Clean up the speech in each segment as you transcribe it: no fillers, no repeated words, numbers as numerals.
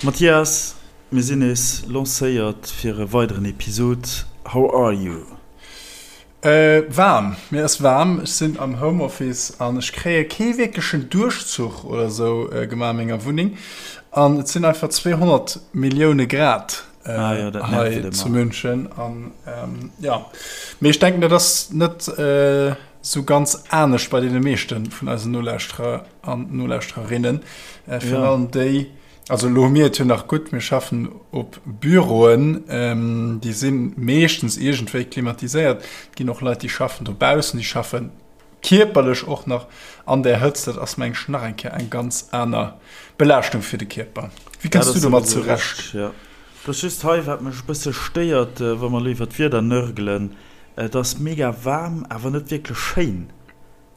Mathias, mir sinn nees lancéiert fir e weideren Episod. How are you? Waarm, mir ass waarm. Ech sinn am Homeoffice an ech kréie kee wierklechen Duerchzuch oder sou gemaach a menger Wunneng an et sinn einfach 200 Millioune Grad hei zu München an jo, mee ech denken dat ass net sou ganz anescht bei deene meeschte vun eisen Nolauschterer an Nolauschtererinnen, virun allem déi, Also elo hu mir et jo nach gutt, mir schaffen op Büroen, déi si meeschtens iergendwéi klimatiséiert. Et ginn och Leit, déi schaffen dobaussen, déi schaffe kierperlech och nach an där Hëtzt. Dat ass, meng ech, nach eng Kéier eng ganz aner Belaaschtung fir de Kierper. Wéi kënns du domat zurecht? Et ass just hei, wat mech e bësse stéiert, wa mer elo iwwer d'Wieder nörgelen, Et ass mega waarm, awer net wierklech schéin.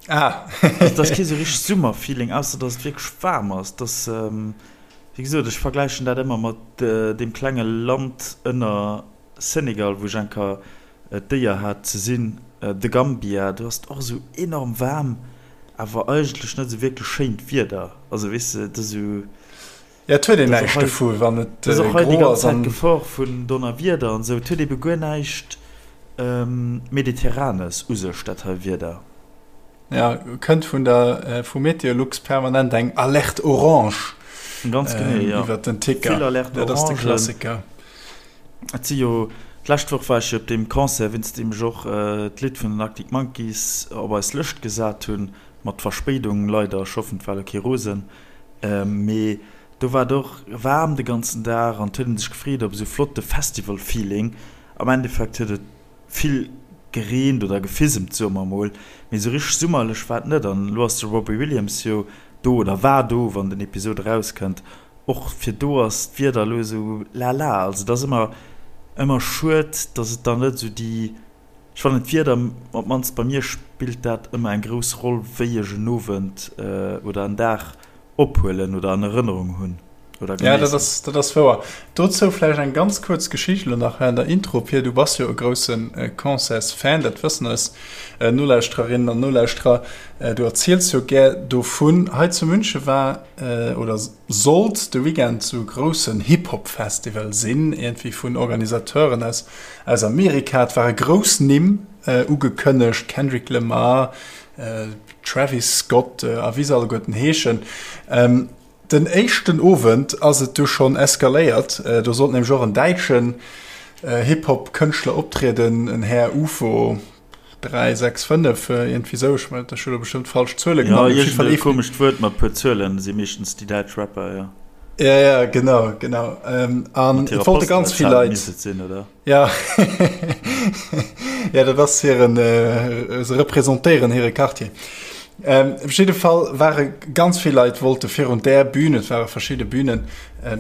Ah. Also, dat ass kee sou richteg Summerfeeling, ausser dass et wierklech waarm ass. Dass, wéi gesot, ech vergläichen dat ëmmer mat deem klenge Land ënner Senegal, wou ech eng Kéier d'Éier hat ze sinn, The Gambia. Do ass et och esou enorm waarm, awer eigentlech net esou wierklech schéint Wieder. Also, weess de, et ass esou. Ja, et huet een näischt dovu wann et gro ass. Et ass och hei déi ganz Zäit d'Gefor vun Donnerwieder an esou. Et huet ebe guer näischt Mediterranes u sech, dat hei Wieder. Ja, kënnt vun der vu Meteolux permanent eng Alerte orange Ganz genee, ja. Iwwer den Ticker. Vill Alerte orangen. Dat ass de Klassiker. Et si jo, d'lescht Woch war ech jo op deem Concert, wéinst deem ech och d'Lidd vun den Arctic Monkeys op eis Lëscht gesat hunn, mat Verspéidung leider, ech hoffen et war elo kee Rosen. Mee do war et och waarm de ganzen Dag an et huet een sech gefreet op esou flotte Festival-Feeling. Am Endeffekt huet et vill gereent oder gefisemt, soe mer emol, mee esou richteg summerlech war et net. An elo ass de Robbie Williams jo do oder war do, wann den Episod erauskënnt. Och fir do ass d'Wieder elo esou lala. Also et ass ëmmer ëmmer schued, datt et dann net esou déi Ech fannen d'Wieder, op d'mannst bei mir spillt dat ëmmer eng grouss Roll wéi ech en Owend oder en Dag ophuelen oder an Erënnerung hunn oder genéissen. Ja, dat ass, dat ass wouer. Dozou vläicht eng ganz kuerz Geschicht elo nach während der Intro. Pir, du bass jo e grousse Concertsfan, dat wëssen eis Nolauschtererinnen an Nolauschterer. Du erziels jo gär dovun. Hei zu Münche war oder sollt de Weekend sou e groussen Hip-Hop-Festival sinn, iergendwéi vun Organisateuren aus aus Amerika. Et ware grouss Nimm ugekënnegt, Kendrick Lamar, Travis Scott a wéi se alleguerten heeschen. Den éischten Owend ass et du schonn eskaléiert. Do sollt nämlech och en däitschen Hip-Hop-Kënschtler optrieden, en Här Ufo. 3, 6, 5, iergendwéi sou. Ech mengen, ech hu lo bestëmmt falsch Zuele genannt. Jo, iergend e komescht Wuert mat puer Zuelen si meeschtens déi däitsch Rapper, jo. Ja, ja, genau, genau. An et wollte ganz vill Leit. Misst et sinn, oder? Ja. Ja, dat ass hiren, se representéieren hire Quartier. Op jidde Fall ware ganz vill Leit wollte virun där Bühn, et ware verschidde Bühnen,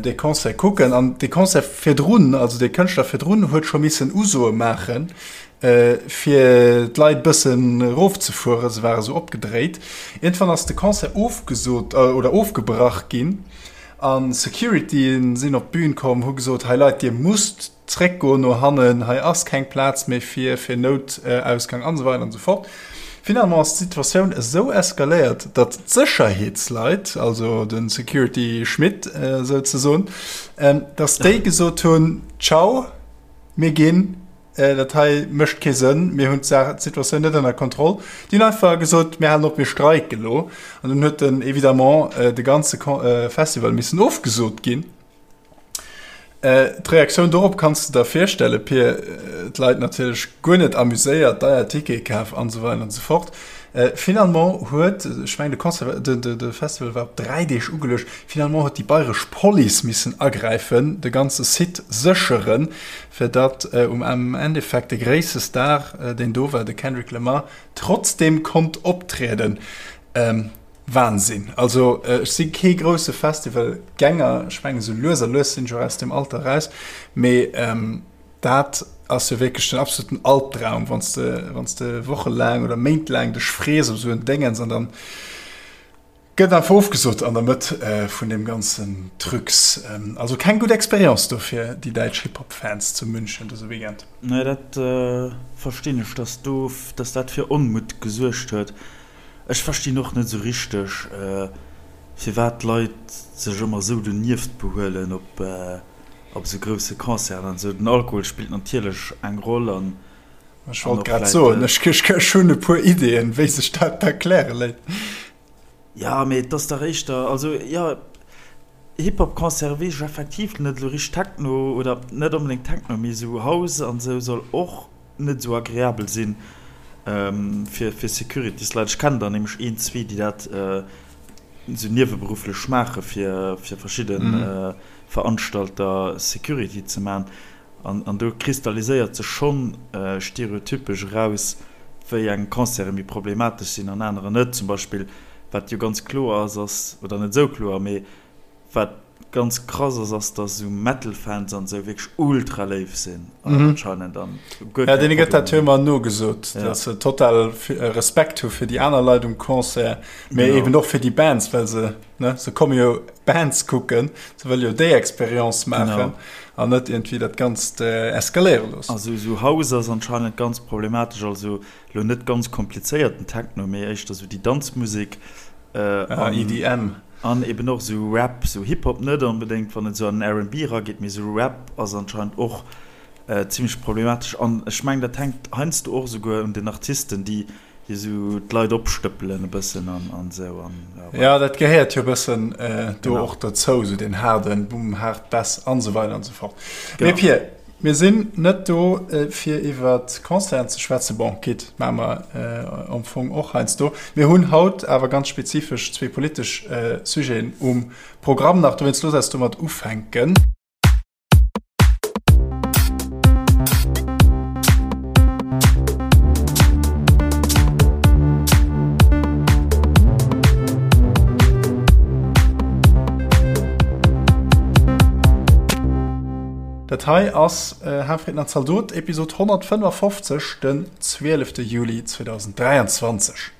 dee Concert kucken. An dee Concert virdrun, also dee Kënschtler virdrun huet scho missen Usoe maachen, Fir d'Leit bëssen erofzefueren, se ware sou opgedréit. Iergendwann ass de Concert ofgesot oder ofgebrach ginn a Securityen sinn op d'Bün komm, hu gesot, hei Leit, dir musst zréckgoen no hannen, hei ass keng Plaz méi fir fir Noutausgang an esou weider an esou fort. Finalement ass d'Situatioun esou eskaléiert, datt d'Sécherheetsleit, also de Security Schmitt souzesoen, datt déi gesot hunn, Ciao, mir ginn. Dat hei mécht kee Sënn, mir hunn d'Saach, d'Situatioun net ënner Kontroll. Déi hunn einfach gesot, mir halen op, mir streiken elo. An dunn huet den évidemment de ganze Festival missen ofgesot ginn. D'Reaktioun dorop kanns de der virstellen, Pir, d'Leit natierlech guer net amuséiert, deier Tickete kaf an esou weider an esou fort. Finalement huet, ech mengen de Concert, de Festival war op 3 Deeg ugeluecht, finalement huet déi bayresch Police missen agräifen, de ganze Site sécheren, fir datt um Endeffekt de gréisste Star, deen do war, de Kendrick Lamar, trotzdeem konnt optrieden. Wahnsinn! Also ech si kee grousse Festivalgänger, ech mengen esou lues a lues sinn ech och aus deem Alter eraus, mee dat ass jo wierklech den absoluten Albdraum, wann s de, wann s de wochelaang oder méintlaang dech frees op esou en Déngens an dann gëtt einfach ofgesot an der Mëtt vun deem ganzen Trucs. Also keng gutt Experience do fir déi däitsch Hip-Hop-Fans zu München dëse Weekend. Nee, dat verstinn ech, dass do, dass dat fir Onmutt gesuergt huet. Ech verstinn och net esou richteg. Firwat d'Leit sech ëmmer esou donieft behuelen op op esou grousse Concerten an esou. Den Alkohol spillt natierlech eng Roll an Ech wollt grad soen, ech hunn e puer Ideeën, wéi sech dat erkläre léit. Jo, mee et ass dach éischter, also jo, Hip-Hop-Concerte weess ech effektiv net elo richteg. Techno oder net onbedéngt Techno, mee esou House an esou soll och net esou agreabel sinn fir fir Securitysleit. Ech kennen der nämlech een, zwee, déi dat esou nieweberufflech maache fir fir verschidde Veranstalter Security ze maachen. An an do kristalliséiert sech schonn stereotypesch eraus, wéi eng Concerte méi problematesch sinn an anerer net. Zum Beispill, wat jo ganz kloer ass, ass, oder net esou kloer, mee wat ganz krass ass, ass, dass esou Metal-Fans an esou wierklech ultra léif sinn anscheinend an guer keng Ja, deene gëtt dat jo ëmmer nogesot, dass se total Respekt hu fir déi aner Leit um Concert, mee eben och fir déi Bands, well se, ne, se komme jo Bands kucken, se wëlle jo déi Experience maachen an net iergendwéi dat Ganzt eskaléiere loossen. Also esou House ass anscheinend ganz problematesch, also elo net ganz komplizéierten Techno, mee éischter esou déi Danzmusek. An EDM. An eben och esou Rap, esou Hip-Hop net onbedéngt, wann et esou an den R&B erageet, mee esou Rap ass anscheinend och zimmlech problematesch. An ech mengen, dat hänkt heiansdo och esouguer un den Artisten, déi esou d'Leit opstëppelen e bëssen an an esou. An ja, voilà. Ja, dat gehéiert jo e bëssen do och dozou, esou deen haarden Boom, haart Bass an esou weider an esou fort. Mee Pir, Mir sinn net do fir iwwer Concerten ze schwätzen, bon quitte, maache mer am Fong och heiansdo. Mir hunn haut awer ganz spezifesch zwee politesch Sujeten um Programm nach, dowéinst looss eis domat ufänken. Dat hei ass Hafrieden an Zaldot, Episod 155, den 12. Juli 2023.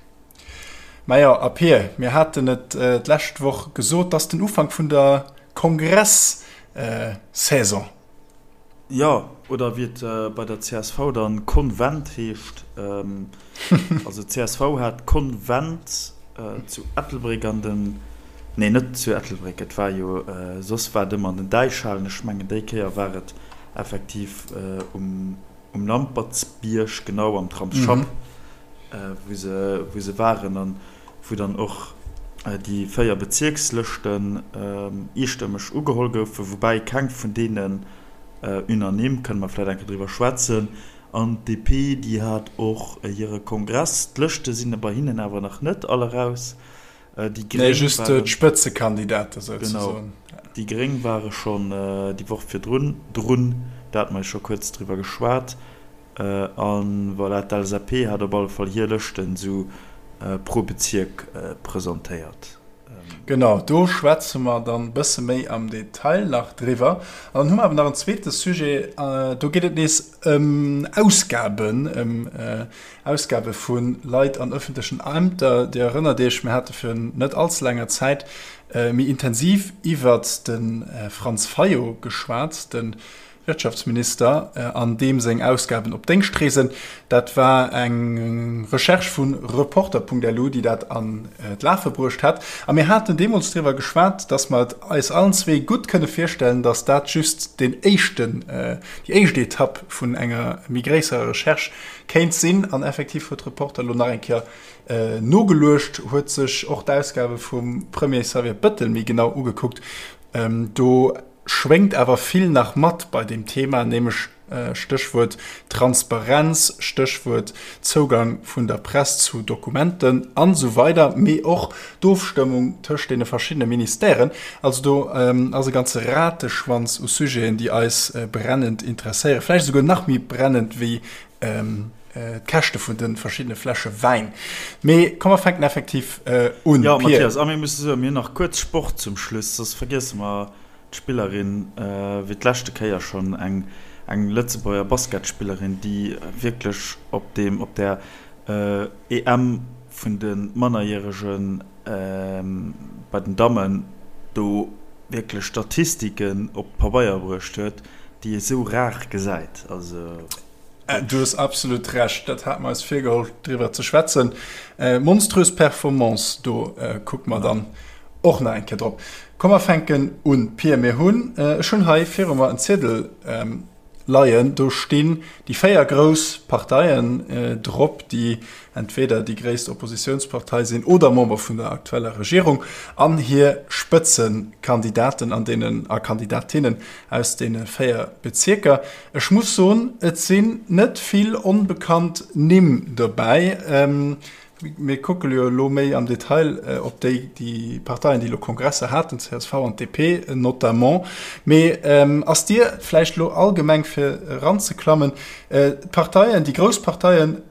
Majo, a Pir, mir haten et d'lescht Woch gesot, 't ass den Ufank vun der Kongress-Saison. Jo, oder wéi et bei der csv dann Konvent heescht. Also csv hat Konvent zu Ettelbréck an den, nee net zu Ettelbréck, et war jo, soss war et ëmmer an den Däichhalen, ech mengen déi Kéier war et effektiv um Lampertsbierg, genau am Tramsschapp, wou se, wou se waren an wou dann och déi 4 Bezierkslëschten eestëmmeg ugeholl goufen, woubäi keng vun deenen unanime, kënne mer vläicht eng Kéier driwwer schwätzen. An d'DP, déi hat och hire Kongress. D'Lëschte sinn bei hinnen awer nach net all eraus. Déi Gréng Nee, just waren, d'Spëtzekandidate souzesoen. Genau, déi Gréng ware schonn déi Woch virdrun drun, do hate mer jo scho kuerz driwwer geschwat. A voilà, d'LSAP hat op alle Fall hir Lëschten esou pro Bezierk presentéiert. Genau, do schwätze mer dann e bësse méi am Detail nach driwwer. An dann hu mer awer nach en zweete Sujet, do geet et nees ëm Ausgaben, ëm Ausgabe vu Leit an ëffentlechen Ämter. Dir erënnert Iech, mir hate virun net allze laanger Zäit méi intensiv iwwert de Franz Fayot geschwat, de Wirtschaftsminister an deem seng Ausgaben op Déngschtreesen. Dat war eng Recherche vu Reporter.lu, déi dat an d'Lafe bruecht hat. A mir haten deemools driwwer geschwat, datt mer et eis allen zwee gutt kënne virstellen, datt dat just deen éischten, déi éischt Etapp vun enger méi gréisserer Recherche kéint sinn. An effektiv huet Reporter elo nach eng Kéier nogeluecht, huet sech och d'Ausgabe vum Premier Xavier Bettel méi genau ugekuckt. Do schwéngt awer vill nach mat bei deem Thema, nämlech Stéchwuert Transparenz, Stéchwuert Zougang vun der Press zu Dokumenten an esou weider, mee och d'Ofstëmmung tëscht deene verschiddene Ministèren. Also do ass e ganze Rateschwanz u Sujeten, déi eis brennend interesséieren, vläicht esouguer nach méi brennend wéi d'Käschte vun de verschiddene Fläsche Wäin. Mee komm mer fänken effektiv un. Jo, Mathias, a mir musse soen, mir hunn nach kuerz Sport zum Schluss, soss vergiesse mer d'Spillerin, wéi d'leschte Kéier schonn, eng eng Lëtzebuerger Basketspillerin, déi wierklech op deem, op där EM vun de Mannerjärege bei den Dammen do wierklech Statistiken op d'Pabeier bruecht huet, déi ee sou rar gesäit. Also. Du hues absolut Recht, dat hate mer eis virgeholl driwwer ze schwätzen. Monströs Performance, do kucke mer dann. och nach eng Kéier drop. Komm mer fänken un, Pir. Mir hunn, ech hunn hei viru mer en Ziedel leien, do stinn déi 4 grouss Parteien drop, déi entweder déi gréisst Oppositiounspartei sinn oder Member vun der aktueller Regierung, an hir Spëtzekandidaten an deenen a Kandidatinnen aus deene 4 Bezierker. Ech muss soen, et sinn net vill onbekannt Nimm dobäi. Mir kucke jo elo méi am Detail op déi, déi Parteien, déi elo Kongresser haten, csv an d'DP notamment. Mee ass Dir vläicht elo allgemeng, fir eranzeklammen, d'Parteien, déi grouss Parteien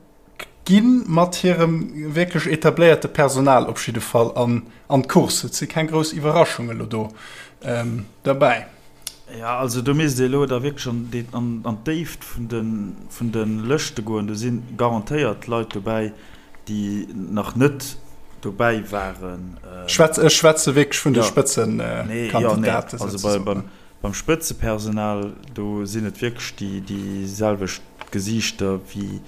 gi mat hirem wierklech etabléierte Personal op jidde Fall an d'Course. Et si keng grouss Iwwerraschunge elo do derbäi. Jo, also do misst ee elo da wierklech an d'Déift vun de Lëschte goen. Do si garantéiert Leit dobäi, déi nach net dobäi waren. Ech schwätze wierklech vun de Spëtzekandidaten. Also beim Spëtzepersonal, do sinn et wierklech déi selwecht Gesiichter wéi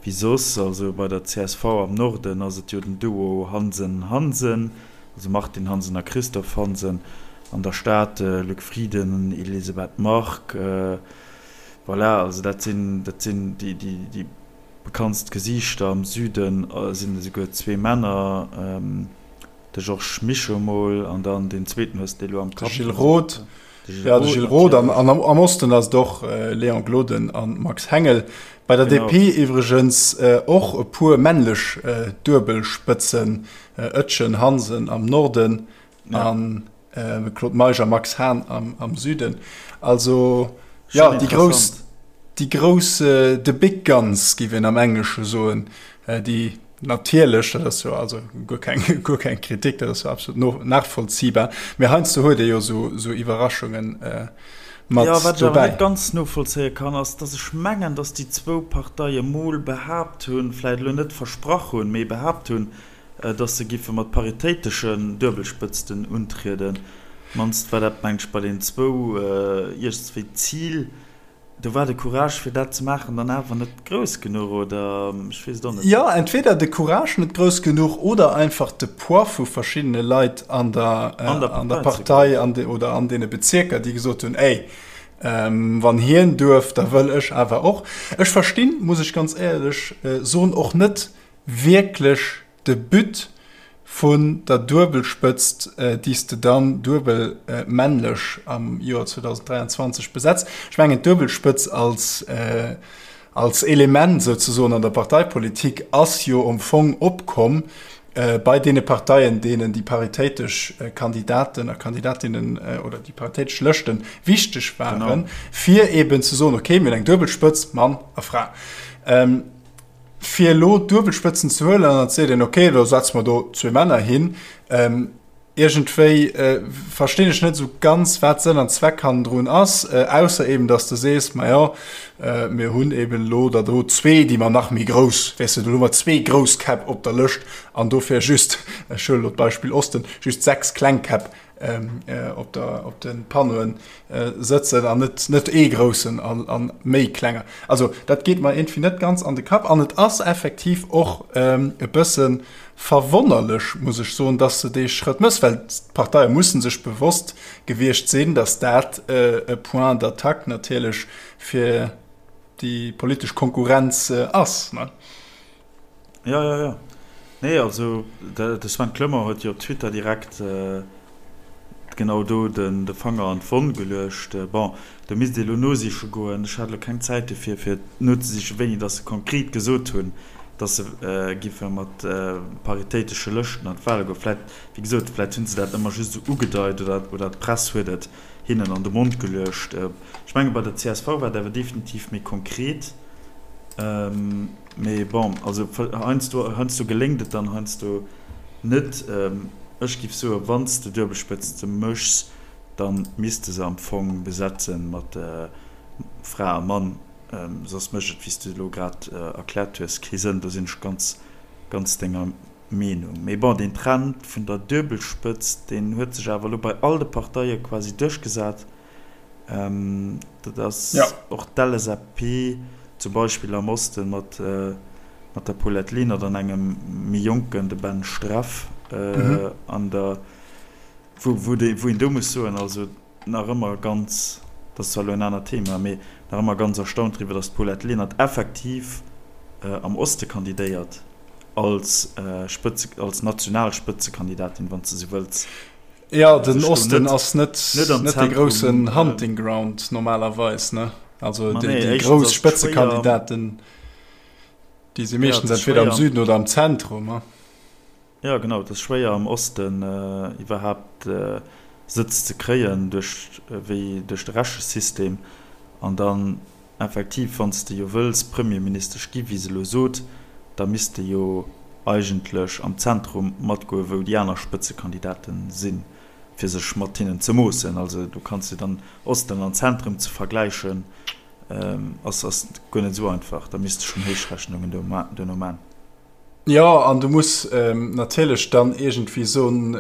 soss. Also bei der csv am Norden ass et jo den Duo Hansen-Hansen. Also Martine Hansen a Christophe Hansen, an der Stad Luc Frieden, Elisabeth Margue, voilà, also dat sinn, dat sinn déi, déi, déi bekanntst Gesiichter. Am Süden sinn esouguer zwee Männer, de Georges Mischo mol an dann deen zweeten hues de elo am Kapp. De Gilles Roth. Ja, de Gilles Roth an, an am Osten ass et och Léon Gloden an Max Hengel. Bei der genau. DP iwwregens och e puer männlech Duebelspëtzen, Oetjen, Hansen am Norden ja. an äh, Claude Meisch a Max Hahn am, am Süden. Also ja, déi grouss, déi grouss äh, the big guns, géif een am Englesche soen, äh, déi Natierlech, dat ass jo also guer keng, guer keng Kritik, dat ass jo absolut no, nachvollziehbar. Mee heiansdo huet ee jo esou, esou Iwwerraschungen mat Jo, wat ech awer dobäi. net ganz novollzéie kann, ass, dass ech mengen, dass déi zwou Parteie mol behaapt hunn, vläicht elo net versprach hunn, mee behaapt hunn, dass se giffe mat paritéiteschen Duebelspëtzten untrieden. Mannst war dat, mengen ech, bei den zwou iergendswéi d'Zil. Do war de Courage fir dat ze maachen dann awer net grouss genuch, oder ech weess et och net. Jo, entweder de Courage net grouss genuch oder einfach de Poids vu verschiddene Leit an der an der Partei an oder an deene Bezierker, déi gesot hunn, ey, wann hien duerf, da wëll ech awer och. Ech verstinn, muss ech ganz éierlech soen, och net wierklech de But vun der Duebelspëtzt, déi s de dann duebel männlech am Joer 2023 besetz. Ech mengen, d'Duebelspëtz als, als Element souzesoen an der Parteipolitik ass jo am Fong opkomm bei deene Parteien, deenen déi paritéitesch Kandidaten a Kandidatinnen oder déi paritéitesch Lëschte wichteg waren, fir eeben ze soen, okay, mir hunn eng Duebelspëtz, Mann a Fra. Fir elo d'Duebelspëtzen ze huelen an dann seet een, okay, da setze mer do zwee Männer hin. Iergendwéi verstinn ech net esou ganz, wat Sënn an Zweck hannendrun ass, ausser eben, datt s de sees, majo, mir hunn eben elo der do zwee, déi mer nach méi grouss, weess de, do hu mer zwee grouss Käpp op der Lëscht an dofir just, ech huelen elo d'Beispill Osten, just 6 kleng Käpp op der op de Panneauen sëtzen an net net ee groussen an an méi klenger. Also dat geet mer iergendwéi net ganz an de Kapp an et ass effektiv och e bësse verwonnerlech, muss ech soen, dass se dee Schrëtt mëss, well d'Parteie mussen sech bewosst gewiescht sinn, dass dat e Point d'attaque natierlech fir déi politesch Konkurrenz ass. Jo, jo, jo. Nee, also de Sven Clement huet jo op Twitter direkt genau do de Fanger an d'Wonn geluecht. Bon, do misst ee elo nosiche goen. Ech hat elo keng Zäit dofir, fir nozesichen, wéini datt se konkret gesot hunn, datt se giffe mat paritéitesche Lëschten an d'Wale goen. Vläicht, wéi gesot, vläicht hu se dat ëmmer just esou ugedeit oder d'Press huet et hinnen an de Mond geluecht. Ech menge bei der csv war et awer definitiv méi konkret. Mee bon, also heiansdo, heiansdo geléngt et dann, heiansdo net. Ech giff soen, wann s de Duebelspëtzte méchs, da misst de se am Fong besetze mat Fra a Mann, soss mécht et, wéi s de elo grad erkläert hues, kee Sënn. Do sinn ech ganz, ganz denger Meenung. Mee bon, deen Trend vun der Duebelspëtzt, deen huet sech awer elo bei all de Parteie quasi duerchgesat. Dat ass och d'LSAP zum Beispill am Oste mat der Paulette Lenert an engem méi Jonken, de Ben Streff, an der. Wou, wou de, wou een do muss soen, also nach ëmmer ganz, dat ass zwar elo en anert Thema, mee nach ëmmer ganz erstaunt driwwer, datt d'Paulette Lenert effektiv am Oste kandidéiert als Spëtze, als national Spëtzekandidatin, wann s de esou wëlls. Jo, den Osten ass net, net dee groussen Hunting Ground normalerweis, ne? Also déi, déi grouss Spëtzekandidaten, déi si meeschtens entweder am Süden oder am Zentrum. Jo genau, et ass schwéier am Osten iwwerhaapt Sëtz ze kréien duerch wéi duerch de Rechesystem. An dann effektiv, wann s de jo wëlls Premierministesch gi wéi se elo sot, da misst de jo eigentlech am Zentrum matgoe wou déi aner Spëtzekandidaten sinn, fir sech mat hinnen ze moossen. Also do kanns de dann Osten an Zentrum ze vergläichen ass ass guer net esou einfach. Da misst de schonn Héichrechnungen duerno man. Jo, an du muss natierlech dann iergendwéi soen,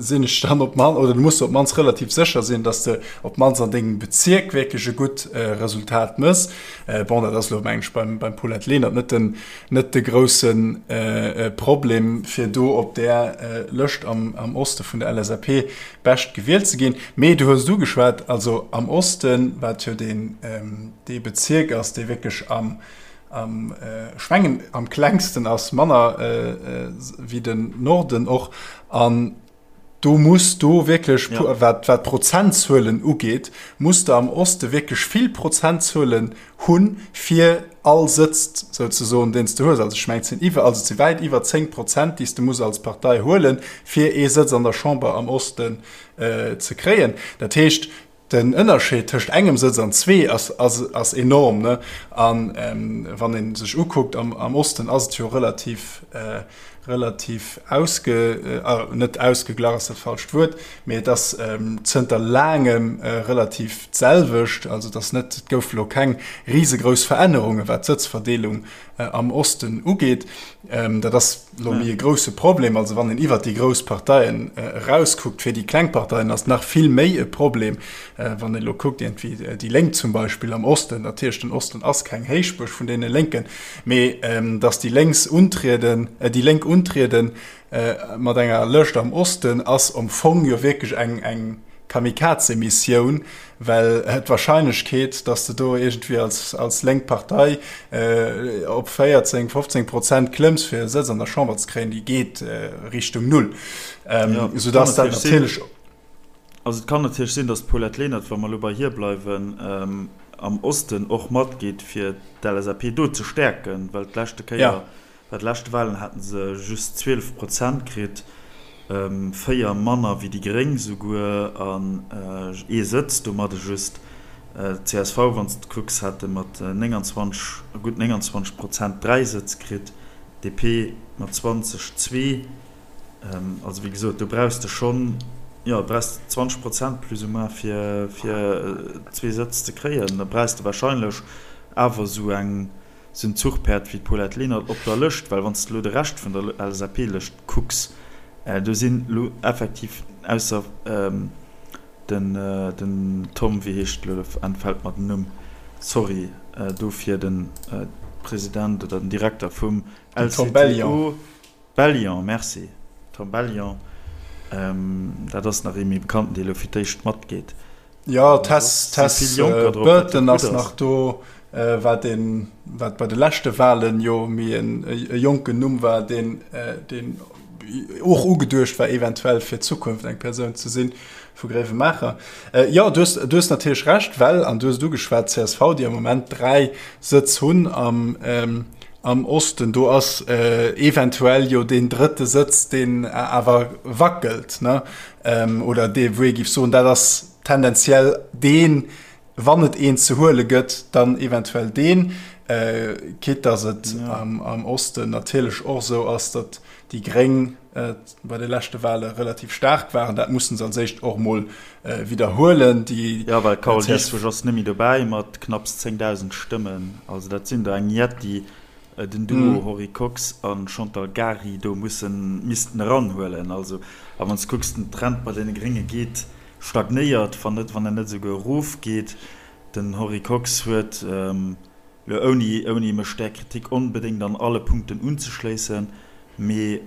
sinn ech dann op d'mannst, oder du muss op d'mannst relativ sécher sinn, datt s de op d'mannst an dengem Bezierk wierklech e gutt Resultat méchs. Bon, dat ass elo, meng ech, beim Paulette Lenert net den, net de grousse Problem, fir do op där Lëscht am Oste vun der LSAP bescht gewielt ze ginn. Mee du hues et ugeschwat, also am Osten, wat jo deen, dee Bezierk ass, dee wierklech am, Am, ech mengen am klengsten ass manner wéi den Norden och. An do muss do wierklech, ja. wat, wat Prozentzuelen ugeet, muss de am Oste wierklech vill Prozentzuelen hunn, fir all Sëtz souzesoen, deen s de hues. Also ech mengen, et sinn iwwer, also et si wäit iwwer 10 Prozent, déi s de muss als Partei huelen, fir ee Sëtz an der Chamber am Osten ze kréien. Dat heescht, Den Ënnerscheed tëscht engem Sëtz an zwee ass enorm. A wann ee sech ukuckt, am Osten ass et jo relativ, relativ ausge, net ausgeglach ass dat falscht Wuert, mee et ass zënter laangem relativ d'selwecht. Also et ass net, et gouf elo keng risegrouss Verännerunge wat d'Sëtzverdeelung am Osten ugeet. Dat ass elo méi e grousse Problem. Also wann een iwwert déi grouss Parteien erauskuckt, fir déi kleng Parteien ass nach vill méi e Problem. Wann een elo kuckt, iergendwéi déi Lénk zum Beispill am Osten, natierlech den Osten ass keng Héichbuerg vun deene Lénken, mee datt déi Lénks untrieden, déi Lénk untrieden mat enger Lëscht am Osten ass am Fong jo wierklech eng, eng Kamikaze-Missioun, well d'Wahrscheinlechkeet, datt de do iergendwéi als, als lénk Partei op 14, 15 Prozent klëmms, fir e Sëtz an der Chamber ze kréien, déi geet Richtung Null. Ja, Soudatt dat natierlech. Also et kann natierlech sinn, datt d'Paulette Lenert, wa mer elo bei hir bleiwen, am Osten och matgeet, fir d'LSAP do ze stäerken, well d'leschte Kéier, Bei de leschte Walen haten se just 12 Prozent kritt, 4 manner wéi déi Gréng souguer an ee Sëtz domadde just. Csv, wann s de kucks, hate mat 29, gutt 29 Prozent 3 Sëtz kritt, DP mat 20 zwee. Also wéi gesot, do brauchs de schonn, jo, brauchs de 20 Prozent plus ou moins fir zwee Sëtz ze kréien. Da brauchs de warscheinlech awer esou eng Sou en Zuchpäerd wéi d'Paulette Lenert op der Lëscht, well wann s de elo de Rescht vun der LSAP-Lëscht kucks, do sinn elo effektiv, ausser den den Tom, wéi heescht elo, entfält mer den Numm, sorry dofir, de President oder den Direkter vum LCTO, Bellion, merci, Tom Bellion, dat ass nach ee méi bekannten, dee elo fir d'éischt matgeet. Jo, Tess, Tess Burton ass nach do, wat een, wat bei de leschte Wahlen jo méi en e jonken Numm war, deen, deen och ugeduecht war eventuell fir d'Zukunft eng Persoun ze sinn vu Gréiwemaacher. Jo, du hues, du hues natierlech Recht, well, an du hues et ugeschwat, csv, déi am Moment 3 Sëtz hunn am, am Osten, do ass eventuell jo deen drëtte Sëtz, deen awer wackelt, ne? Oder dee wou ee géif soen, dat ass tendenziell deen, wann et een ze huele gëtt, dann eventuell deen. Quitte datt et am Osten natierlech och esou ass, datt déi Gréng bei de leschte Wahle relativ staark waren. Dat mussen se als éischt och emol widderhuelen. Déi Jo, well d'Carole Dieschbourg ass net méi dobäi mat knapps 10.000 Stëmmen. Also dat sinn der eng Jetti, den Duo Henri Kox a Chantal Gary do mussen, missten eranhuelen. Also, a wann s de kucks, den Trend bei deene Grénge geet, stagnéiert, wann net, wann en net esouguer erofgeet. Den Henri Kox huet elo, ouni, ouni mech där Kritik onbedéngt an alle Punkten unzeschléissen, mee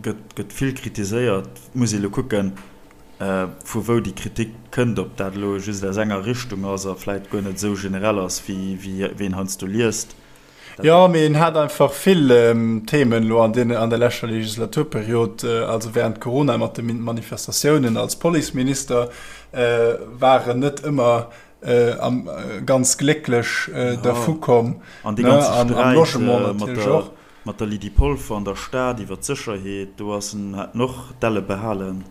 gëtt, gëtt vill kritiséiert. Muss ee elo kucken. vu wou déi Kritik kënnt, ob dat elo just aus enger Richtung ass a vläit guer net esou generell ass, wéi een heiansdo liest. Jo, mee en hat einfach vill Themen elo an deene, an der leschter Legislaturperiod, also während Corona mat de Manifestatiounen als Policeminister, war en net ëmmer ganz glécklech dervu komm. An dee ganze Sträit mat der, mat der Lydie Polfer an der Stad iwwer d'Sécherheet, do ass en, hat en och d'Elle behalen.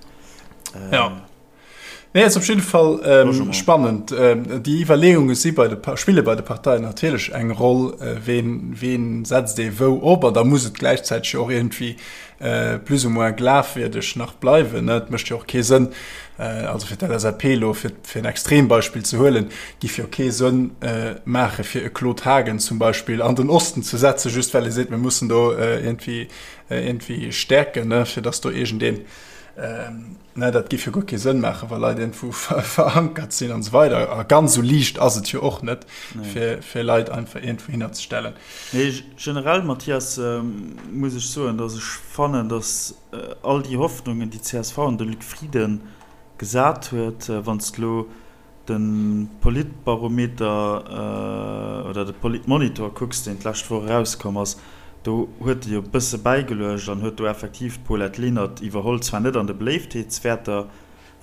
Jo. Nee, ass op jidde Fall spannend. Déi Iwwerleeunge si bei de, spille bei de Parteien natierlech eng Roll, ween, ween setzt ee wou op. An da muss et gläichzäiteg jo och iergendwéi plus ou moins glafwierdeg nach bleiwen. Et mécht jo och kee Sënn, also fir d'LSAP elo, fir, fir en Extrembeispill ze huelen, giff jo kee Sënn maache fir e Claude Haagen zum Beispill an den Osten ze setzen, just well ee seet, mir mussen do iergendwéi, iergendwéi stäerken, fir datt do iergendeen, Ne, dat géif jo guer kee Sënn maachen, wa Leit iergendwou verankert sinn an esou weider. A ganz esou liicht ass et jo och net, fir, fir Leit einfach iergendwou hinner ze stellen. Nee, generell, Mathias, muss ech soen, datt ech fannen, datt all déi Hoffnungen, déi d'CSV an de Luc Frieden gesat huet, wann s de elo de Politbarometer oder de Politmonitor kucks, deen d'lescht Woch erauskomm ass, do huet e jo e bësse bäigeluecht an huet do effektiv d'Paulette Lenert iwwerholl, zwar net an de Beléiftheetswäerter,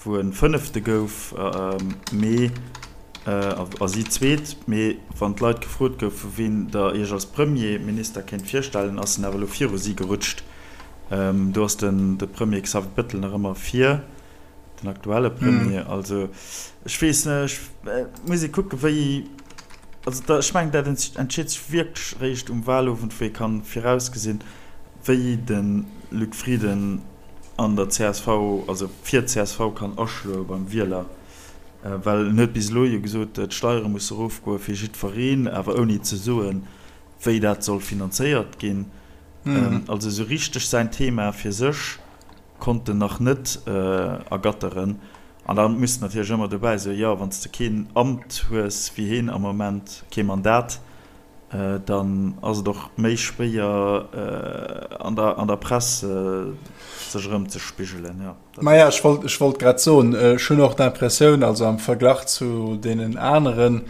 wou e Fënnefte gouf, mee a si Zweet, mee wann d'Leit gefrot goufen, wien Der Iech als Premierminister kéint virstellen, ass en awer elo viru si gerutscht. Do ass de Premier Xavier Bettel nach ëmmer vir. Den aktuelle Premier, mm. also ech weess net, ech äh, muss ee kucke wéi also da, ech mengen dat entscheet sech wierklech réischt um Wahlowend, wou ee kann virausgesinn, wéi de Luc Frieden an der csv, also fir d'CSV kann aschloe beim Wieler. Äh, well en huet bis elo jo gesot, d'Steiere musse erofgoe fir jiddwereen, awer ouni ze soen, wéi dat soll finanzéiert ginn. Mm. Also esou richteg säin Thema fir sech konnt en nach net ergatteren. An da muss de natierlech ëmmer dobäi soen, jo, wann s de keen Amt hues wéi heen am Moment, kee Mandat, dann ass et och méi schwéier an der, an der Press sech erëmzespigelen, jo. Maja, ech wollt, ech wollt grad soen, ech hunn och d'Impressioun, also am Verglach zu deenen aneren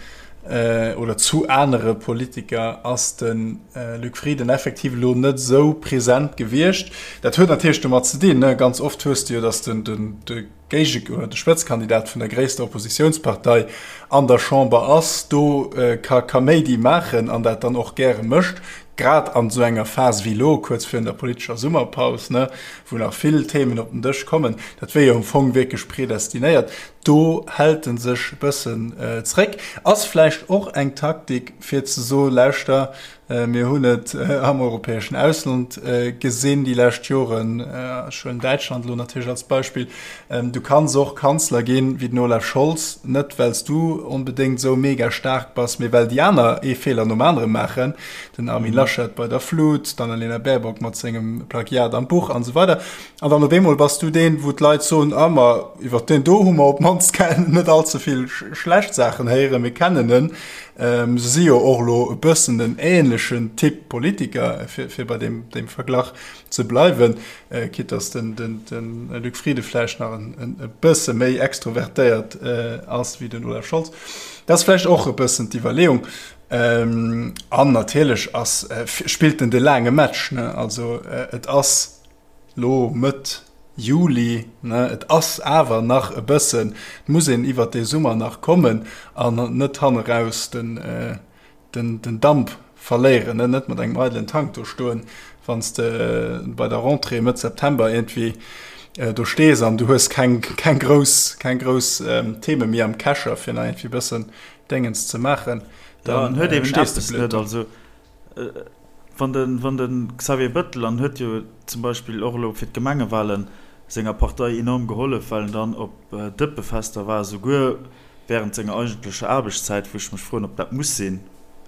oder zu anere Politiker ass de Luc Frieden effektiv elo net esou present gewiescht. Dat huet natierlech domat ze dinn, ganz oft hues de jo, datt den, den, de Géige oder de Spëtzkandidat vun der gréisster Oppositiounspartei an der Chamber ass, do ka Kaméidi maachen an dat dann och gäre mécht, grad an esou enger Phas wéi elo, kuerz virun der politescher Summerpaus, wou nach vill Themen op den Dësch kommen. Dat wier jo am Fong wierklech predestinéiert. Do hält en sech e bëssen zréck. Ass vläicht och eng Taktik, fir ze soen, Lauschter, mir hunn et am europäeschen Ausland gesinn déi lescht Joren, ech huelen Däitschland elo natierlech als Beispill, du kanns och Kanzler ginn wéi den Olaf Scholz, net well s du onbedéngt esou mega staark bass, mee well déi aner ee Feeler nom anere maachen, den Armin Laschet bei der Flut, d'Annalena Baerbock mat sengem Plagiat am Buch an esou weider. An dann op eemol bass du deen, wou d'Leit soen, ah ma iwwer deen do hu mer op d'mannst net all ze vill schlecht Saachen héieren, mir kennen en. Se si jo och elo e bëssen en ähnlechen Typ Politiker, fir bei deem Verglach ze bleiwen, quitte dass den Luc Frieden vläicht nach e bësse méi extrovertéiert ass wéi den Olaf Scholz. Dat ass vläicht och e bëssen d'Iwwerleeung. An natierlech ass, spillt en de laange Match, ne? Also et ass lo Mëtt Juli, ne, et ass awer nach e bëssen, et muss een iwwert dee Summer nach kommen an net hanneraus den, den, den Damp verléieren, ne, net mat engem eidelen Tank do stoen, wann s de bei der Rentrée Mëtt September iergendwéi do stees an du hues keng, keng grouss, keng grouss Theme méi am Kescher, fir nach iergendwéi e bëssen Déngens ze maachen, dann stees de blöd do. Wann de, wann de Xavier Bettel, an huet jo zum Beispill och elo fir d'Gemengewahlen senger Partei enorm gehollef, well en dann op Dëppefester war, souguer während senger eigentlecher Aarbechtszäit, wou ech mech froen, ob dat muss sinn,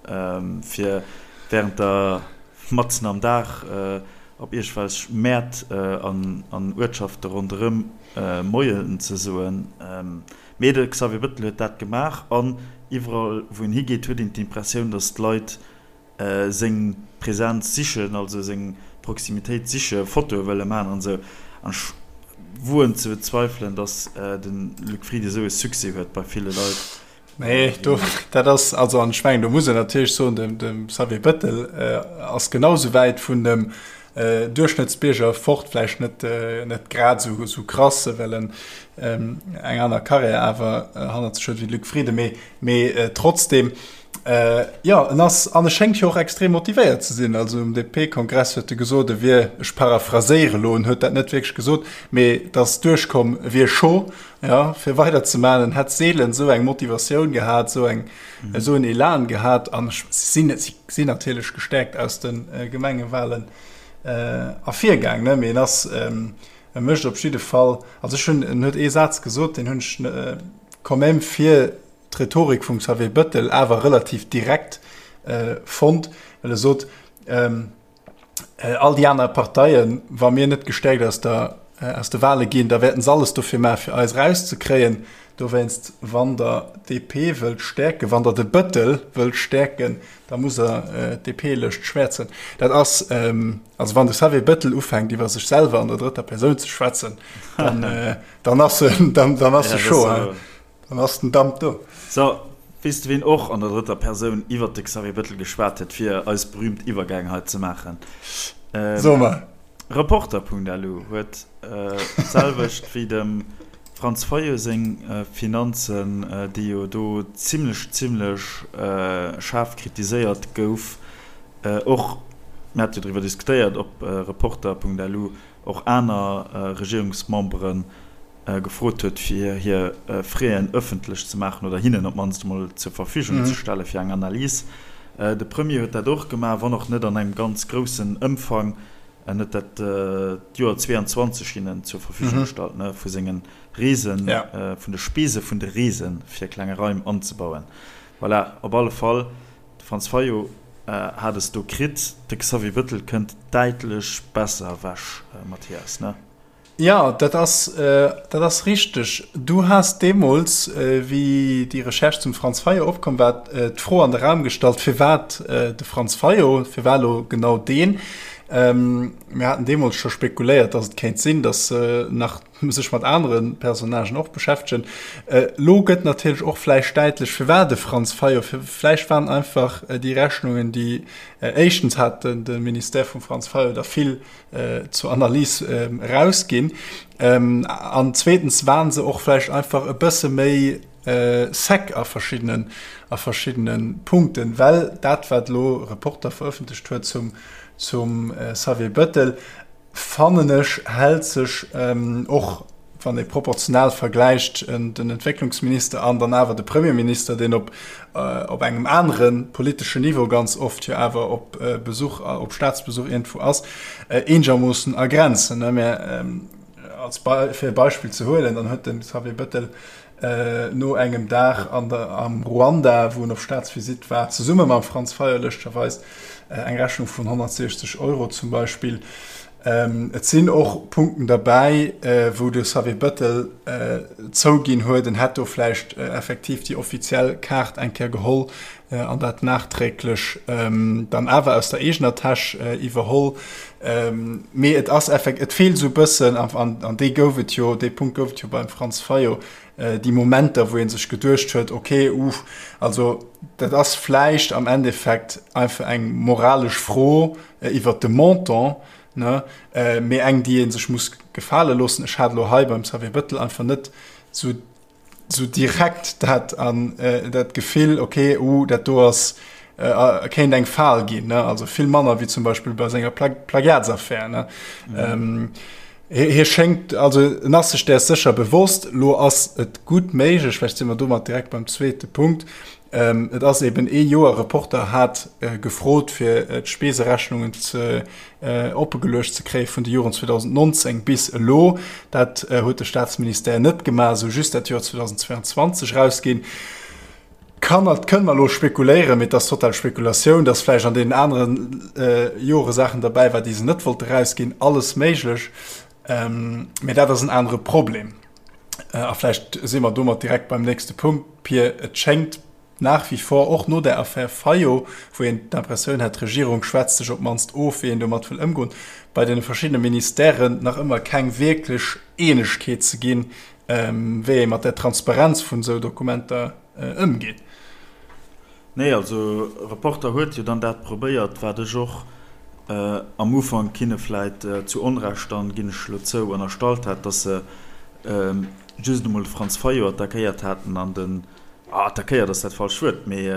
fir während der, matzen am Dag op iergwelch Mäert an Uertschafte ronderëm Moien ze soen. Mee de Xavier Bettel huet dat gemaach an iwwerall wou en higeet, huet een d'Impressioun, datt d'Leit seng Präsenz sichen, also seng Proximitéit sichen, Fotoe wëlle maachen an esou. An ech, woen ze bezweifelen, datt de Luc Frieden esou e Succès huet bei ville Leit. Nee, do, dat ass, also an ech mengen, do muss een natierlech soen, dem, dem Xavier Bettel ass genau sou wäit vun dem Duerchschnëttsbierger fort, vläicht net, net grad esou, esou krass, well en eng aner Karriär awer hannert sech huet wéi de Luc Frieden, mee, mee trotzdem, jo, en ass, an e schéngt jo och extrem motivéiert ze sinn. Also um DP-Kongress huet e gesot, e wier, ech paraphraséiere elo, en huet dat net wierklech gesot, mee et ass duerchkomm, e wier chaud, Ja, fir weider ze maachen. En hätt seelen esou eng Motivatioun gehat, esou eng, esou en Elan gehat. An ech sinn, si sinn natierlech gestärkt aus de Gemengewahlen ervirgaang, ne? Mee en ass, e mécht op jidde Fall, also ech hunn, en huet ee Saz gesot, deen hunn ech quand même fir d'Rhetorik vum Xavier Bettel awer relativ direkt fonnt, well e sot, All déi aner Parteien, wa mir net gestäerkt aus der, aus de Wahle ginn, da wäerten se alles dofir maachen, fir eis erauszekréien. Dowéinst, wann Der d'DP wëllt stäerken, wann Der de Bëttel wëllt stäerken, da musst Der d'DP-Lëscht schwäerzen. Dat ass, also wann de Xavier Bëttel ufänkt, iwwer sech selwer an der drëtter Persoun ze schwätzen, dann, dann ass en, dann, dann ass e chaud. Dann ass den Damp do. So, weess de ween och an der drëtter Persoun iwwert de Xavier Bettel geschwat huet fir eis berühmt Iwwergäng hei ze maachen? So mer. Reporter.lu huet d'selwecht wéi dem Franz Fayot seng Finanzen, déi jo do zimlech zimlech schaarf kritiséiert gouf, och, mir hate jo driwwer diskutéiert, ob Reporter.lu och aner Regierungsmemberen gefrot huet, fir hir Fräen ëffentlech ze maachen oder hinnen op d'mannst emol zur Verfügung ze stelle fir eng Analys. De Premier huet dat och gemaach, wann och net an engem ganz groussen Ëmfang. En huet dat d'Joer 22 hinnen zur Verfügung gestallt, vu senge Reesen, vun de Spese vun de Reesen, fir klenge Raim anzebauen. Voilà, op alle Fall, de Franz Fayot hat es do kritt. De Xavier Bettel kënnt däitlech besser ewech, Mathias, ne? Jo, dat ass, dat ass richteg. Du has deemools, wéi déi Recherche zum Franz Fayot opkomm war, d'Fro an de Raum gestallt, firwat de Franz Fayot, firwat elo genau deen? Mir haten deemools scho spekuléiert, datt et kéint sinn, datt se nach sech mat anere Personnagen och beschäftegen. Elo gëtt natierlech och vläicht däitlech, firwat de Franz Fayot. Vläicht waren einfach déi Rechnungen, déi éischtens hat de Ministère vum Franz Fayot der vill zur Analys erausginn. An zweetens waren se och vläicht einfach e bësse méi sec a verschiddenen, a verschiddene Punkten, well dat, wat elo Reporter verëffentlecht huet zum, zum Xavier Bettel, fannen ech, hält sech och wann ee proportional vergläicht, den Entwécklungsminister an dann awer de Premierminister, deen op op engem anere politeschen Niveau ganz oft jo awer op Besuch, op Staatsbesuch iergendwou ass, eenegermoossen a Grenzen. Mä als fir e Beispill ze huelen, dann huet de Xavier Bettel no engem Dag an der, am Ruanda, wou en op Staatsvisitt war, zesumme mam Franz Fayot lëschtgerweis, eng Rechnung vun 160 Euro zum Beispill. Et sinn och Punkten derbäi, wou de Xavier Bettel zouginn huet, en hätt do vläicht effektiv déi offiziell Kaart eng Kéier geholl an dat nachträglech dann awer aus der eegener Täsch iwwerholl. Mee et ass effekt, et feelt esou e bëssen, an dee gouf et jo, dee Punkt gouf et jo beim Franz Fayot, déi Momenter, wou ee sech geduecht huet, okay, uff, also dat ass vläicht am Endeffekt einfach eng moralesch Fro iwwert de Montant, ne, mee eng, déi ee sech muss gefale loossen. Ech hat elo hei beim Xavier Bettel einfach net esou esou direkt dat an dat Gefill, okay, uh, dat do ass kéint eng Fal ginn, ne, also vill manner wéi zum Beispill bei senger Plagiatsaffär, ne. Mhm. Hie schéngt, also en ass sech däers sécher bewosst. Lo ass et gutt méiglech, vläicht si mer domat direkt beim zweete Punkt, et ass eben ee Joer, Reporter hat gefrot, fir d'Speeserechnungen ze oppegeluecht ze kréie vun de Joren 2019 bis elo. Dat huet de Staatsministère net gemaach, esou just dat Joer 2022 erausginn. Kann, dat kënne mer elo spekuléieren, mee et ass total Spekulatioun, dass vläicht an deenen anere Jore Saachen derbäi war, déi se net wollte erausginn. Alles méiglech, mee dat ass en anere Problem. A vläicht si mer domat direkt beim nächste Punkt, Pir. Et schéngt. nach wie vor, och no där Affär Fayot, wou een d'Impressioun hat, d'Regierung schwätzt sech op d'mannst of, wéi een domat wëll ëmgoen, bei deene verschiddene Ministèren nach ëmmer keng wierklech Eenegkeet ze ginn, wéi ee mat där Transparenz vun esou Dokumenter ëmgeet. Nee, also Reporter huet jo dann dat probéiert, wat ech och am Ufank hinne vläit zu Onrecht dann, ginn ech elo zou, ënnerstallt hat, dass se just emol de Franz Fayot attackéiert haten an den, attackéiert ass dat falscht Wuert, mee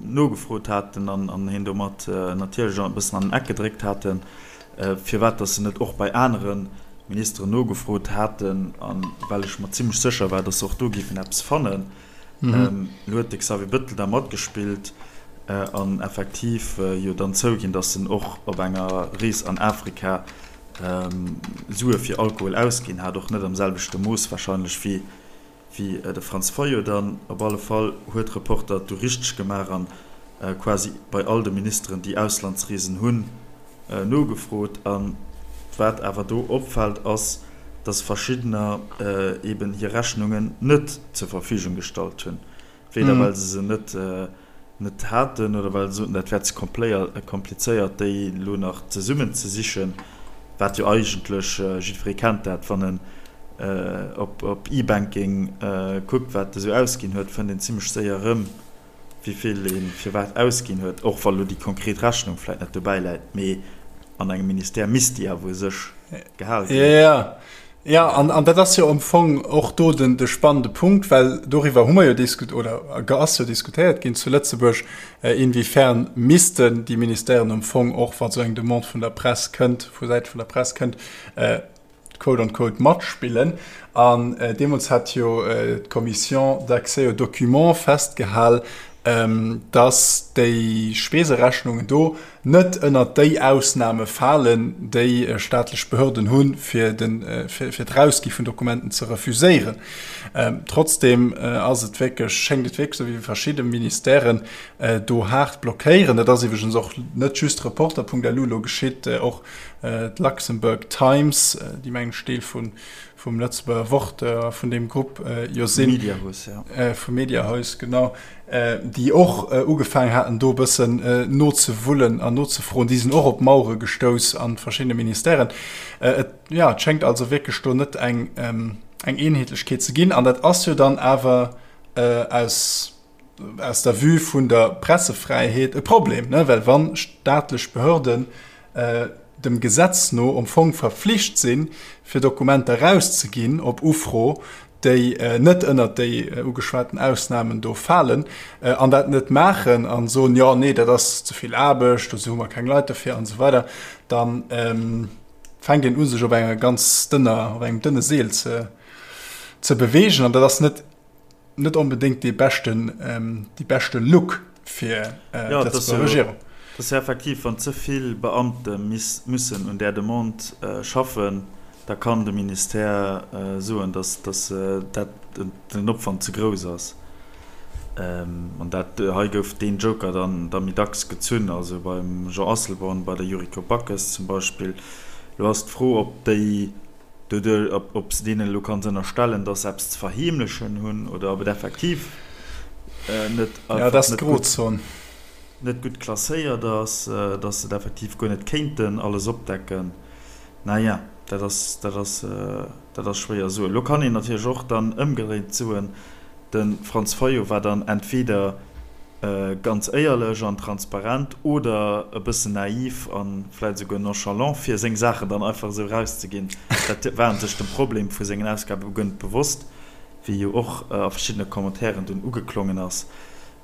nogefrot haten an hien domat natierlech e bëssen an den Eck gedréckt haten, firwat dass se net och bei anere Ministeren nogefrot haten, a well ech mer zimlech sécher war, dass se och do géifen eppes fannen. Elo huet de Xavier Bettel da matgespillt an effektiv jo dann zouginn, datt en och op enger Rees an Afrika Sue fir Alkohol ausginn hat, och net am selwechte Mooss warscheinlech wéi de Franz Fayot dann. Op alle Fall huet Reporter et du richteg gemaach an quasi bei all de Ministeren, déi Auslandsreesen hunn, nogefrot. A wat awer do opfält, ass, dass verschiddener eeben hir Rechnungen net zur Verfügung gestallt hunn, weder well se se net net haten oder well se soten, dat wär ze komplizéiert, déi elo nach zesummen ze sichen, wat jo eigentlech, jiddweree kennt dat, wann en op E-Banking kuckt, wat e sou ausginn huet, fënnt een zimmlech séier erëm, wéi vill ee firwat ausginn huet, och wa lo déi konkret Rechnung vläit net dobäi läit, mee an engem Ministère misst déi awer u sech gehal ginn. Jo, jo, an dat ass jo am Fong och do den de spannende Punkt, well doriwwer hu mer jo diskut oder ass jo diskutéiert ginn zu Lëtzebuerg, inwiefern missten déi Ministèren am Fong och, wa sou eng Demande vun der Press kënnt, vu Säite vun der Press kënnt, quote on quote matspillen. An deemools hat jo d'Commission d'accès aux documents festgehal, dass déi Speserechnungen do net ënnert déi Ausname falen, déi staatlech Behörden hunn, fir d'Erausgi vun Dokumenten ze refuséieren. Trotzdem ass et wierklech, schéngt et wierklech esou, wéi verschidde Ministèren do haart blockéieren. Dat ass iwwregens och net just Reporter.lu elo geschitt, och D'Luxembourg Times, déi mengen ech Deel vum Lëtzebuerger Wort a vun deem Grupp jo sinn, Mediahuis, ja. Vum Mediahuis, genau, déi och ugefaangen haten do e bëssen nozewullen an nozefroen, déi sinn och op Mauere gestouss a verschiddene Ministèren. Et, jo, et schéngt also wierklech do net eng Eenheetlechkeet ze ginn. An dat ass jo dann awer aus, aus der Vue vun der Pressefräiheet e Problem, ne? Well wa staatlech Behörden dem Gesetz no am Fong verflicht sinn, fir Dokumenter erauszeginn op Ufro, déi net ënnert déi ugeschwaten Ausnamen do falen, an dat net maachen a soen, jo, nee, dat ass ze vill Aarbecht, dozou hu mer keng Leit derfir an esou weider, da fänkt een u sech op enger ganz dënner, op engem dënne Seel ze beweegen. An dat ass net net onbedéngt dee beschten, déi beschte Look fir d'Lëtzebuerger Regierung. Dat ass jo effektiv, wann ze vill Beamte mussen un där Demande schaffen, da kann de Ministère soen, datt dat den Opwand ze grouss ass. An dat hei gouf deen Joker dann da méi dacks gezunn, also beim Jean Asselborn, bei der Yuriko Backes zum Beispill. Elo ass d'Fro, ob déi Doduerch, ob s de deenen elo kanns ënnerstellen, dass se eppes ze verheemlechen hunn oder ob et effektiv net einfach net gutt, net gutt klasséiert ass, dass se et effektiv guer net kéinten alles opdecken. Naja, dat ass, dat ass, dat ass schwéier soen. Elo kann een natierlech och dann ëmgedréint soen, De Franz Fayot war dann entweder ganz éierlech an transparent oder e bëssen naiv a vläit esouguer nonchalant, fir seng Saachen dann einfach esou erauszeginn. Dat war en sech dem Problem vu sengen Ausgabe guer net bewosst, wéi jo och a verschiddene Commentairen dunn ugeklongen ass.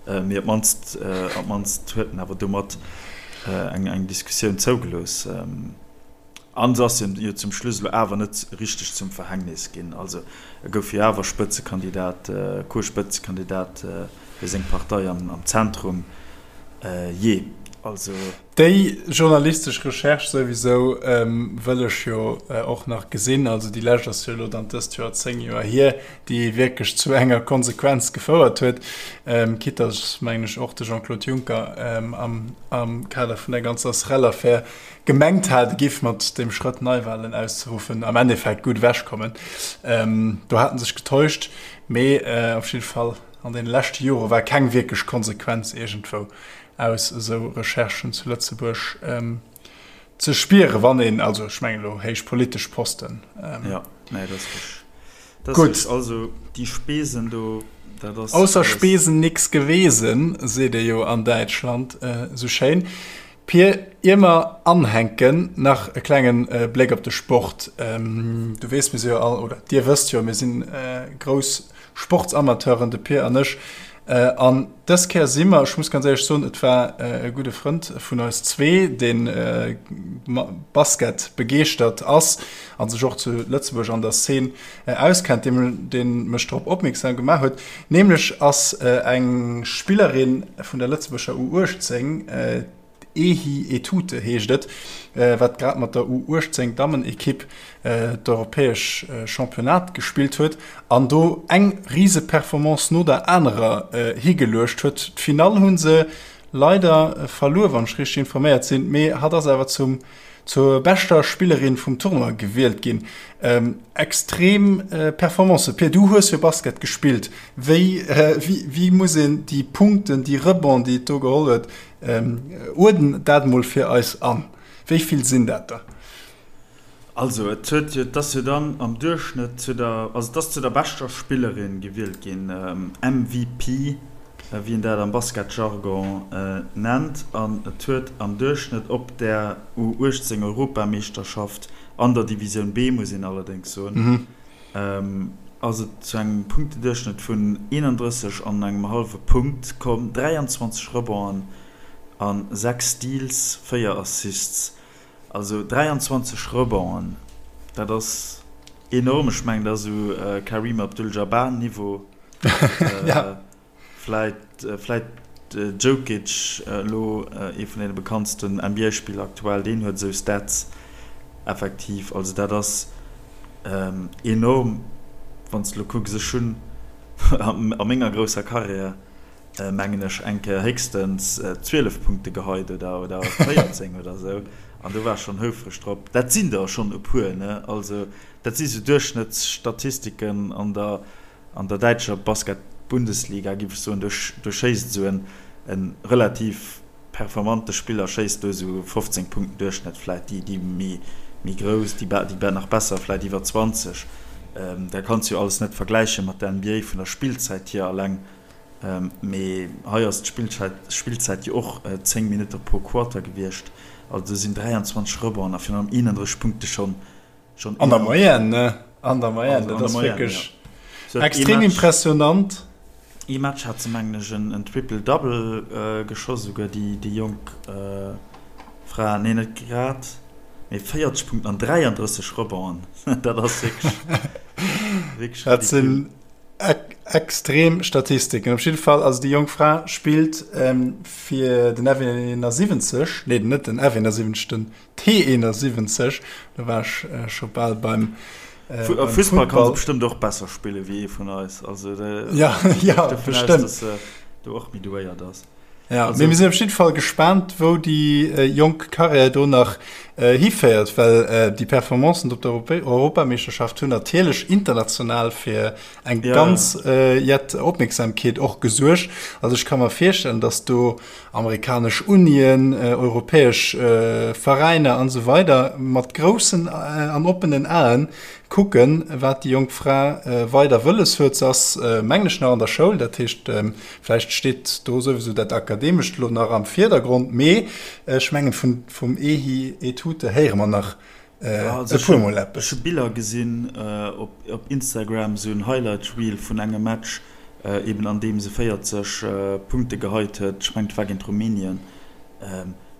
Mee op d'mannst, op d'mannst huet en awer domat eng Diskussioun zougelooss. An se ass him jo zum Schluss elo awer net richteg zum Verhängnis ginn. Also e gouf jo awer Spëtzekandidat, Co-Spëtzekandidat fir seng Partei am Zentrum. Jee, also. Déi journalistesch Recherche souwisou wëll ech jo och nach gesinn. Also déi lescht ass jo elo dann dëst Joer 10 Joer hier, déi wierklech zu enger Konsequenz gefouert huet, quitte dass, mengen ech, och de Jean-Claude Juncker am Kader vun der ganzer SREL-Affär gemengt hat, e giff mat deem Schrëtt Neiwahlen auszeruffen am Endeffekt gutt ewechkommen. Do hat en sech getäuscht, mee op jidde Fall. An deene leschte Jore war keng wierklech Konsequenz iergendwou aus esou Recherchen zu Lëtzebuerg ze spieren, wann een, also ech mengen elo héich politesch Posten. Jo, nee, dat ass richteg. Dat ass richteg. Also déi Spesen do, dat ass. Ausser Spesen nix gewesen, seet ee jo an Däitschland esou schéin. Pir, ier mer anhänken, nach e klenge Bléck op de Sport. Du weess, mir si jo all, oder Dir wësst jo, mir si grouss Sportsamateuren, de Pir an ech. An dës Kéier si mer, ech muss ganz éierlech soen, et war e gudde Frënd vun eis zwee, dee Basket begeeschtert ass a sech och zu Lëtzebuerg an der Szene auskennt, dee mech drop opmierksam gemaach huet. Nämlech ass eng Spillerin vun der Lëtzebuerger U18, d'Ehi Etute heescht et, wat grad mat der U18 Dammenekipp d'europäesch Championnat gespillt huet an do eng Riseperformance no der anerer higeluecht huet. D'Finall hu se leider verluer, wann ech richteg informéiert sinn, mee hatt ass awer zum zur beschter Spillerin vum Tournoi gewielt ginn. Extrem Performance. Pir, du hues jo Basket gespillt. Wéi, wéi muss een déi Punkten, déi Rebonds, déi et do geholl huet, uerden dat mol fir eis an. Wéi vill sinn dat der? Also et huet jo, et ass jo dann am Duerchschnëtt zu der, also et ass zu der beschter Spillerin gewielt ginn, MVP, wéi een dat am Basketjargon nennt, an et huet am Duerchschnëtt op där U18 Europameeschterschaft, an der Divisioun B muss een allerdéngs soen, ass et zu engem Punkteduerchschnëtt vun 31 an engem hallwe Punkt komm, 23 Rebonden a 6 Steals, 4 Assists. Also 23 Rebonden, dat ass enorm. Ech mengen, dat ass esou Kareem Abdul-Jabbar-Niveau. Vläit, vläit Jokic, elo ee vun deene bekanntsten NBA-Spiller aktuell, deen huet esou Stats effektiv. Also dat ass enorm, wann s de elo kucks. Ech hunn a menger grousser Karriär, mengen ech, eng Kéier héchstens 12 Punkte geheit oder oder 14 oder esou an do war ech schonn houfreg drop. Dat sinn der schonn e puer, ne? Also dat si sou Duerchschnëttsstatistiken an der an der däitscher Basket-Bundesliga, géif ech soen. Do do schéisst esou en e relativ performante Spiller schéisst do esou 15 Punkten Duerchschnëtt vläit, déi déi méi méi grouss, déi déi nach besser vläit iwwer 20. Dat kanns du jo alles net vergläiche mat der NBA vun der Spillzäit hier alleng. Mee hei ass d'Spillzäit jo och 10 Minutte pro Quarter gewiescht. Also do sinn 23 Rebonds a virun allem 31 Punkte schonn enorm. An der Moyenne, ne? An der Moyenne, dat ass wierklech extrem impressionant. Ee Match hat se, mengen ech, en Triple-Double geschoss, esouguer déi jonk Fra. Nee, net grad, mee 40 Punkten an 33 Rebonden. Dat ass wierklech ridicule. Extrem Statistiken. Op jidde Fall, also déi jonk Fra spillt fir den F71, nee net den F71, den T71, do war ech scho bal beim Fussball. Fussball kann se bestëmmt och besser spille wéi ee vun eis, also ja, ja, bestëmmt, dass se do och méi douéiert ass. Ja, mee mir sinn op jidde Fall gespaant, wou déi jonk Karriär do nach hiféiert, well déi Performancen op der Europameeschterschaft hunn natierlech international fir eng ganz jett Opmierksamkeet och gesuergt. Also ech ka mer virstellen, datt do amerikanesch Unien, europäesch Veräiner an esou weider mat groussen an oppenen Aen kucken, wat déi jonk Fra weider wëlles huet. Se ass, mengen ech, nach an der Schoul, dat heescht, Vläicht steet do souwisou dat Akademescht elo nach am Virdergrond, mee ech mengen, vum Ehi Etute héiere mer nach e puermol eppes. Ech hu Biller gesinn op Instagram, esou en Highlight Reel vun engem Match, eben an deem se 40 Punkte geheit huet. Ech mengen, et war géint Rumänien.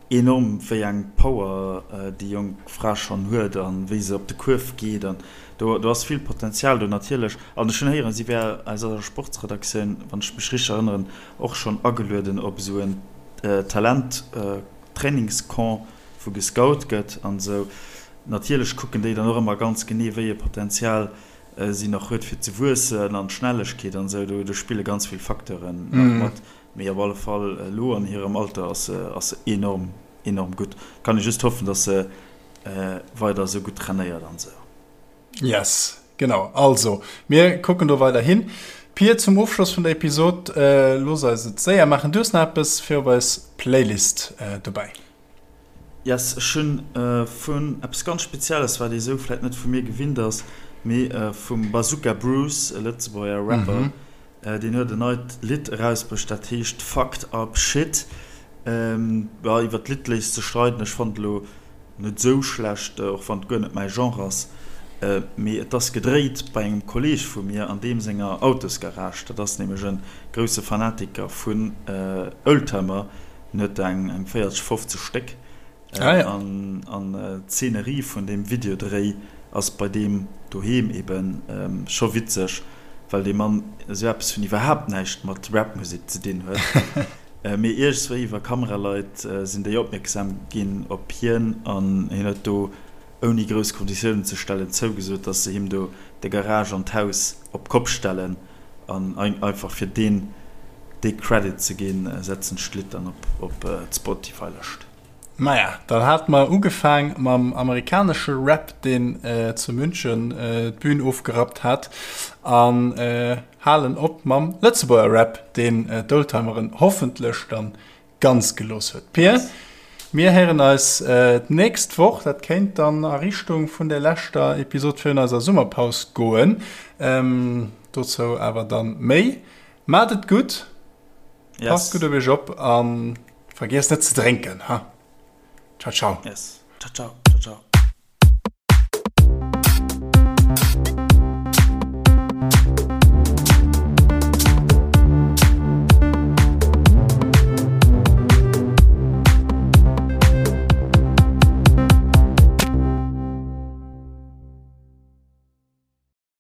Enorm, wéi eng Power déi jonk Fra schonn huet a wéi se op de Kuerf geet. An do ass vill Potenzial do natierlech. An ech hunn héieren, si wär aus eiser Sportsredaktioun, wann ech mech richteg erënneren, och schonn agelueden op esou en Talent-Trainingscamp, wou gescout gëtt an esou. Natierlech kucken déi dann och ëmmer ganz genee, wéi e Potenzial si nach huet fir ze wuessen an d'Schnellegkeet an esou. Do spille ganz vill Facteuren nach mat. Mee op alle Fall elo an hirem Alter ass se ass se enorm enorm gutt. Kann ee just hoffen, dass se weider esou gutt trainéiert an esou. Yes, genau. Also mir kucken do weider hin. Pir, zum Ofschloss vun der Episod, looss eis et séier maachen. Du hues nach eppes fir op eis Playlist dobäi. Yes, ech hunn vun eppes ganz Spezielles, wat ee sou vläit net vu mir gewinnt ass, mee vum Bazooka Bruce, e Lëtzebuerger Rapper, deen huet en neit Lidd erausbruecht, dat heescht Fucked Up Shit. Jo, iwwer d'Lidd léisst sech streiden, ech fannen et elo net sou schlecht, och wann et guer net mäi Genre ass, mee et ass gedréit bei engem Kolleeg vu mir an deem senger Autosgarage. Dat ass nämlech e grousse Fanatiker vun Oldtimer, en huet der eng 40, 50 Stéck. An d'Szenerie vun deem Videodréi ass bei deem doheem ebe scho witzeg, well dee Mann esou eppes vun iwwerhaapt näischt mat Rapmusek ze dinn huet. Mee iergendswéi iwwer Kameraleit sinn déi opmierksam ginn op hien an hien huet do, ouni grouss Konditiounen ze stellen, zougesot, dass se him do de Garage an d'Haus op d'Kopp stellen. An einfach fir deen dee Credit ze ginn, setzen ech d'Lidd dann op d'Spotify-Lëscht. Maja, dann hate mer ugefaang mam amerikanesche Rap, deen zu München d'Bün ofgerappt hat, an halen op mam Lëtzebuerger Rap, deen d'Oldtimeren hoffentlech dann ganz gelooss huet. Pir, mir héieren eis d'nächst Woch, dat kéint dann a Richtung vun der leschter Episod virun eiser Summerpaus goen, dozou awer dann méi. Maacht et gutt! Passt gutt op iech op a vergiesst net ze drénken, ha. Ciao ciao. Yes. Ciao ciao. Ciao ciao.